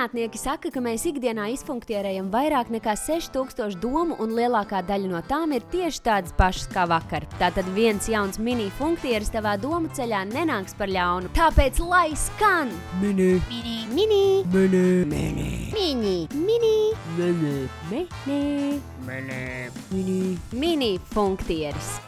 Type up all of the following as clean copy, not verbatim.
Zinātnieki saka, ka mēs ikdienā izfunktierējam vairāk nekā 6000 domu, un lielākā daļa no tām ir tieši tādas pašas kā vakar. Tātad viens jauns mini funktieris tavā domu ceļā nenāks par ļaunu. Tāpēc lai skan! Mini, mini, mini, mini, mini, mini, mini, mini, mini, mini, mini, mini funktieris.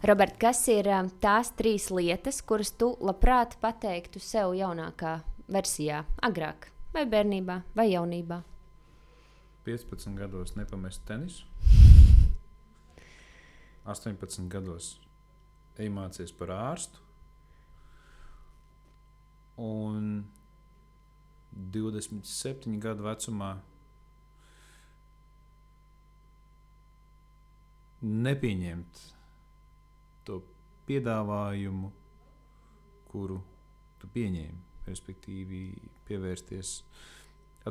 Robert, kas ir tās 3 lietas, kuras tu labprāt pateiktu sev jaunākā versijā, agrāk, vai bērnībā, vai jaunībā? 15 gados nepamest tenisu. 18 gados ej mācies par ārstu. Un 27 gadu vecumā nepieņemt to piedāvājumu, kuru tu pieņēmi, respektīvi pievērsties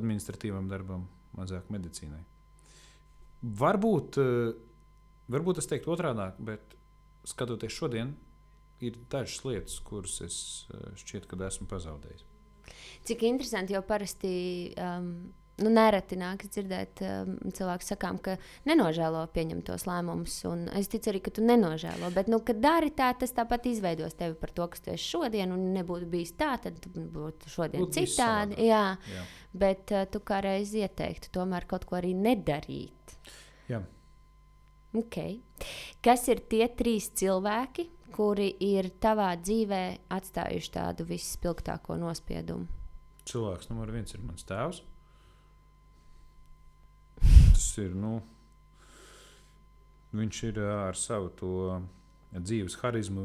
administratīvam darbam, mazāk medicīnai. Varbūt es teiktu otrādāk, bet skatoties šodien, ir dažas lietas, kuras es šķiet, kad esmu pazaudējis. Cik interesanti, jo parasti nereti nākas dzirdēt cilvēku sakām, ka nenožēlo pieņemtos lēmumus, un es ticu arī, ka tu nenožēlo, bet, kad dari tā, tas tāpat izveidos tevi par to, kas tu esi šodien, un nebūtu bijis tā, tad būtu šodien citādi. Jā. Bet tu kā reiz ieteiktu tomēr kaut ko arī nedarīt. Jā. Okay. Kas ir tie 3 cilvēki, kuri ir tavā dzīvē atstājuši tādu visspilgtāko nospiedumu? Cilvēks numur 1 ir mans tēvs. Tas ir, viņš ir ar savu to dzīves harizmu,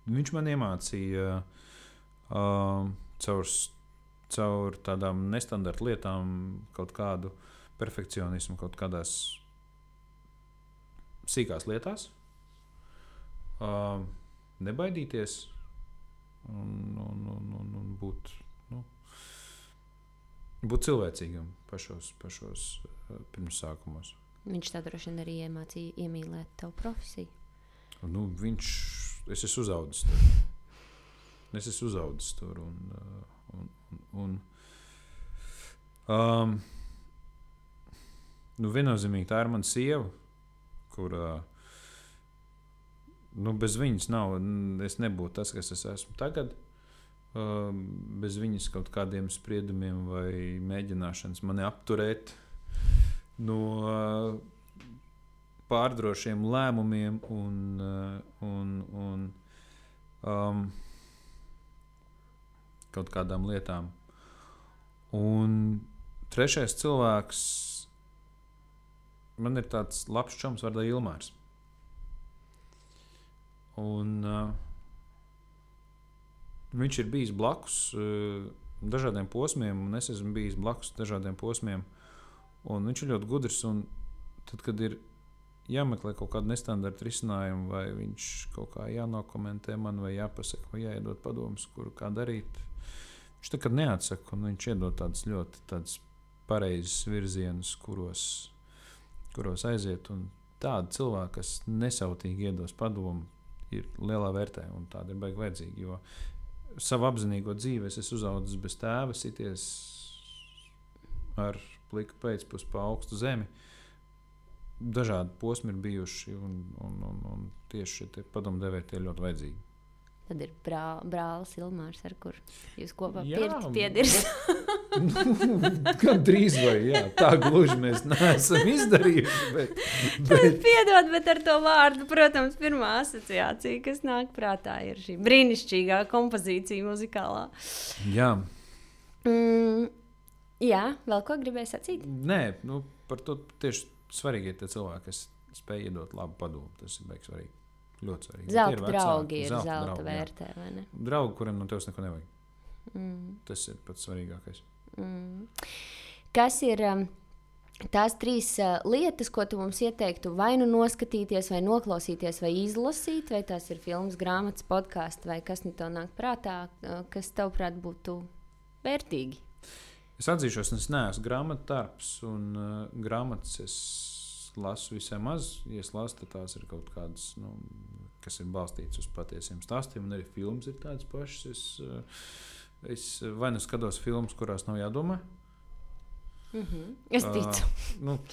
viņš man iemācīja caur tādām nestandarta lietām kaut kādu perfekcionismu, kaut kādās sīkās lietās, nebaidīties un būt cilvēcīgam pašos pirmsākumos. Viņš tā droši vien arī iemācīja iemīlēt tavu profesiju. Es esmu uzaudzis tur. Viennozīmīgi tā ir mana sieva, kurā bez viņas es nebūtu tas, kas es esmu tagad. Bez viņas kaut kādiem spriedumiem vai mēģināšanas mani apturēt no pārdrošiem lēmumiem un kaut kādām lietām. Un 3. cilvēks, man ir tāds labs čoms vārdā Ilmārs. Un viņš ir bijis blakus dažādiem posmiem, un es esmu bijis blakus dažādiem posmiem. Un viņš ir ļoti gudrs, un tad, kad ir jāmeklē kaut kāda nestandarta risinājuma, vai viņš kaut kā jānokomentē man, vai jāpasaka, vai jāiedod padomus, kuru kā darīt, viņš nekad neatsaka, un viņš iedod tādas ļoti pareizes virzienus, kuros aiziet. Un tādi cilvēki, kas nesautīgi iedos padomu, ir lielā vērtē, un tāda ir baigi vajadzīga, jo savu apzinīgo dzīvi es esmu uzaudzis bez tēva, sities ar pliku pēcpus pa augstu zemi. Dažādi posmi ir bijuši, un tieši šie padomdevēji tie ļoti vajadzīgi. Tad ir brālis Ilmārs, ar kur jūs kopā piedirs. Gan drīz vai, jā, tā gluži mēs neesam izdarījuši, bet... Piedod, bet ar to vārdu, protams, pirmā asociācija, kas nāk prātā, ir šī brīnišķīgā kompozīcija muzikālā. Jā. Jā, vēl ko gribēji sacīt? Nē, par to tieši svarīgi ir tie cilvēki, kas spēj iedot labu padomu, tas ir baigi svarīgi. Ļoti svarīgi. Zelta draugi ir zelta vērtē, vai ne? Draugi, kuriem no tevis neko nevajag. Tas ir pats svarīgākais. Kas ir tās 3 lietas, ko tu mums ieteiktu vai nu noskatīties, vai noklausīties, vai izlasīt, vai tās ir filmas, grāmatas, podkāsti, vai kas nu tev nāk prātā, kas tavuprāt būtu vērtīgi? Es atzīšos, es neesmu grāmatdarbs, un grāmatas es lasu visai maz. Ja es lasu, tad tās ir kaut kādas, kas ir balstītas uz patiesiem stāstiem, un arī filmas ir tādas pašas. Es vai nu skatos filmas, kurās nav jādomā. Es ticu.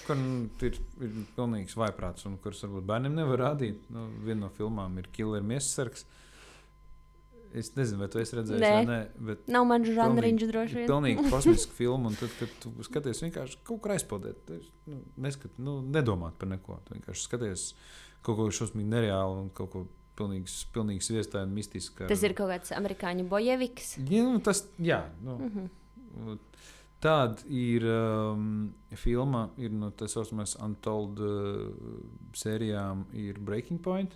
Kur ir pilnīgs vaiprāts, un kuras varbūt bērniem nevar rādīt. Viena no filmām ir Killer Miesasargs. Es nezinu, vai tu esi redzējis vai nē, bet nav man žanriņš droši vien. Pilnīgi kosmiska filma, un tad, kad tu skaties vienkārši kaut kur aizpildēt, nedomāt par neko. Tu vienkārši skaties kaut ko šausmīgi nereālu un kaut ko pilnīgi sviestāju un mistisku. Tas ir kaut kāds amerikāņu bojeviks? Tāda ir filma, ir no tā saucamās Untold sērijām, ir Breaking Point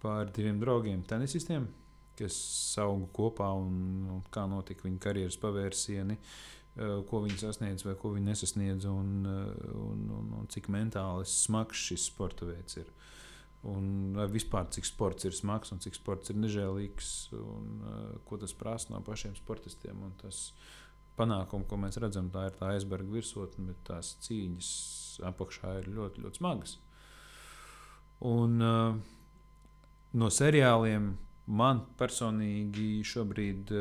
par diviem draugiem tenisistiem, kas auga kopā un kā notika viņa karjeras pavērsieni, ko viņi sasniedz vai ko viņi nesasniedz un cik mentāli smags šis sporta veids ir. Un vispār cik sports ir smags un cik sports ir nežēlīgs un ko tas prasa no pašiem sportistiem. Un tas panākumi, ko mēs redzam, tā ir tā aizberga virsotne, bet tās cīņas apakšā ir ļoti, ļoti smagas. Un no seriāliem man personīgi šobrīd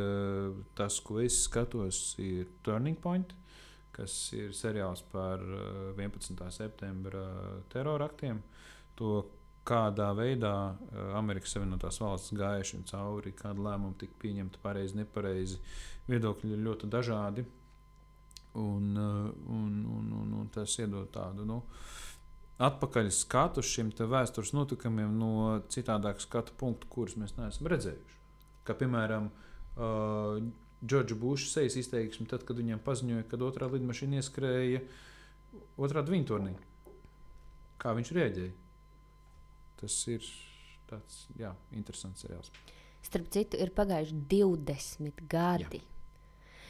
tas, ko es skatos, ir Turning Point, kas ir seriāls par 11. septembra teroraktiem. To, kādā veidā Amerikas Savienotās valstis gāja šim cauri, kāda lēmuma tika pieņemta pareizi, nepareizi. Viedokļi ir ļoti dažādi. Un tas iedod tādu, atpakaļ skatu šiem vēstures notikumiem no citādāka skatu punktu, kurus mēs neesam redzējuši. Kā piemēram, Džordža Buša sejas izteiksme, tad, kad viņam paziņoja, kad otrā lidmašīna ieskrēja otrādi viņa turnī. Kā viņš rēģēja? Tas ir tāds, interesants seriāls. Starp citu, ir pagājuši 20 gadi.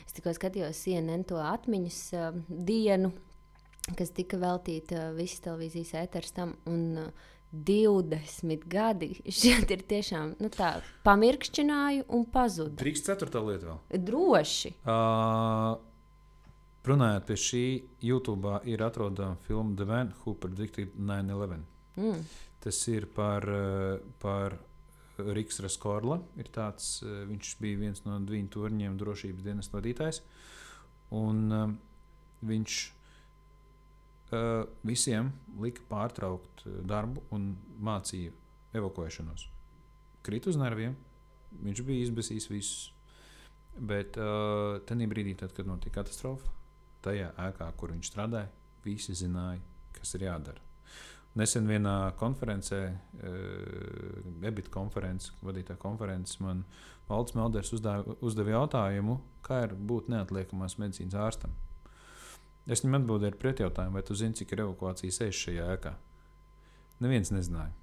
Es tikko skatījos CNN to atmiņas dienu, kas tika veltīta visas televīzijas ēteras tam, un 20 gadi. Šeit ir tiešām tā, pamirkšķināju un pazudu. Drīkst 4. lieta vēl? Droši. Runājot pie šī, YouTube ir atrodama filma The Man Who Predicted 9/11. Tas ir par Riks Raskorla. Viņš bija viens no viņa torņiem drošības dienas vadītājs. Un viņš visiem lika pārtraukt darbu un mācīja evakuēšanos. Krīt uz nerviem, viņš bija izbesījis visus. Bet tajā brīdī, tad, kad notika katastrofa, tajā ēkā, kur viņš strādāja, visi zināja, kas ir jādara. Nesen vienā konferencē, EBIT konferences, vadītā konferences, man Valds Melders uzdeva jautājumu, kā ir būt neatliekamās medicīnas ārstam. Es viņam atbildēju ar pretjautājumu, vai tu zini, cik ir evakuācijas sejas šajā ēkā? Neviens nezināja.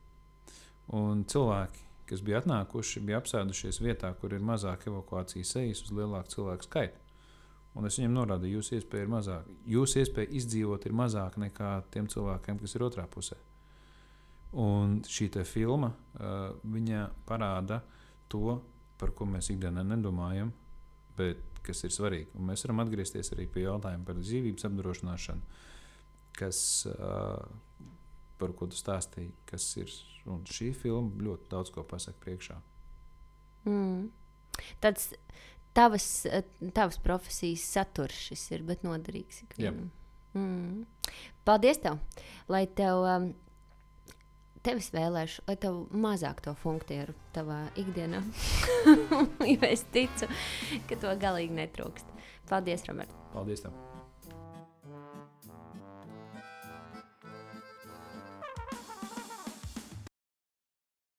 Un cilvēki, kas bija atnākuši, bija apsēdušies vietā, kur ir mazāk evakuācijas sejas uz lielāku cilvēku skaitu. Un es viņam norādīju, jūsu iespēja ir mazāka. Jūsu iespēja izdzīvot ir mazāka nekā tiem cilvēkiem, kas ir otrā pusē. Un šī te filma, viņa parāda to, par ko mēs ikdienā nedomājam, bet kas ir svarīgi. Un mēs varam atgriezties arī pie jautājuma par dzīvības apdrošināšanu, par ko tu stāstīji, kas ir. Un šī filma ļoti daudz ko pasaka priekšā. Tāds tavas profesijas saturs šis ir, bet noderīgs ikvienam. Paldies tev, lai tev es vēlēšu, lai tev mazāk to funktieru tavā ikdienā. Jo es ticu, ka to galīgi netrūkst. Paldies, Robert. Paldies tev.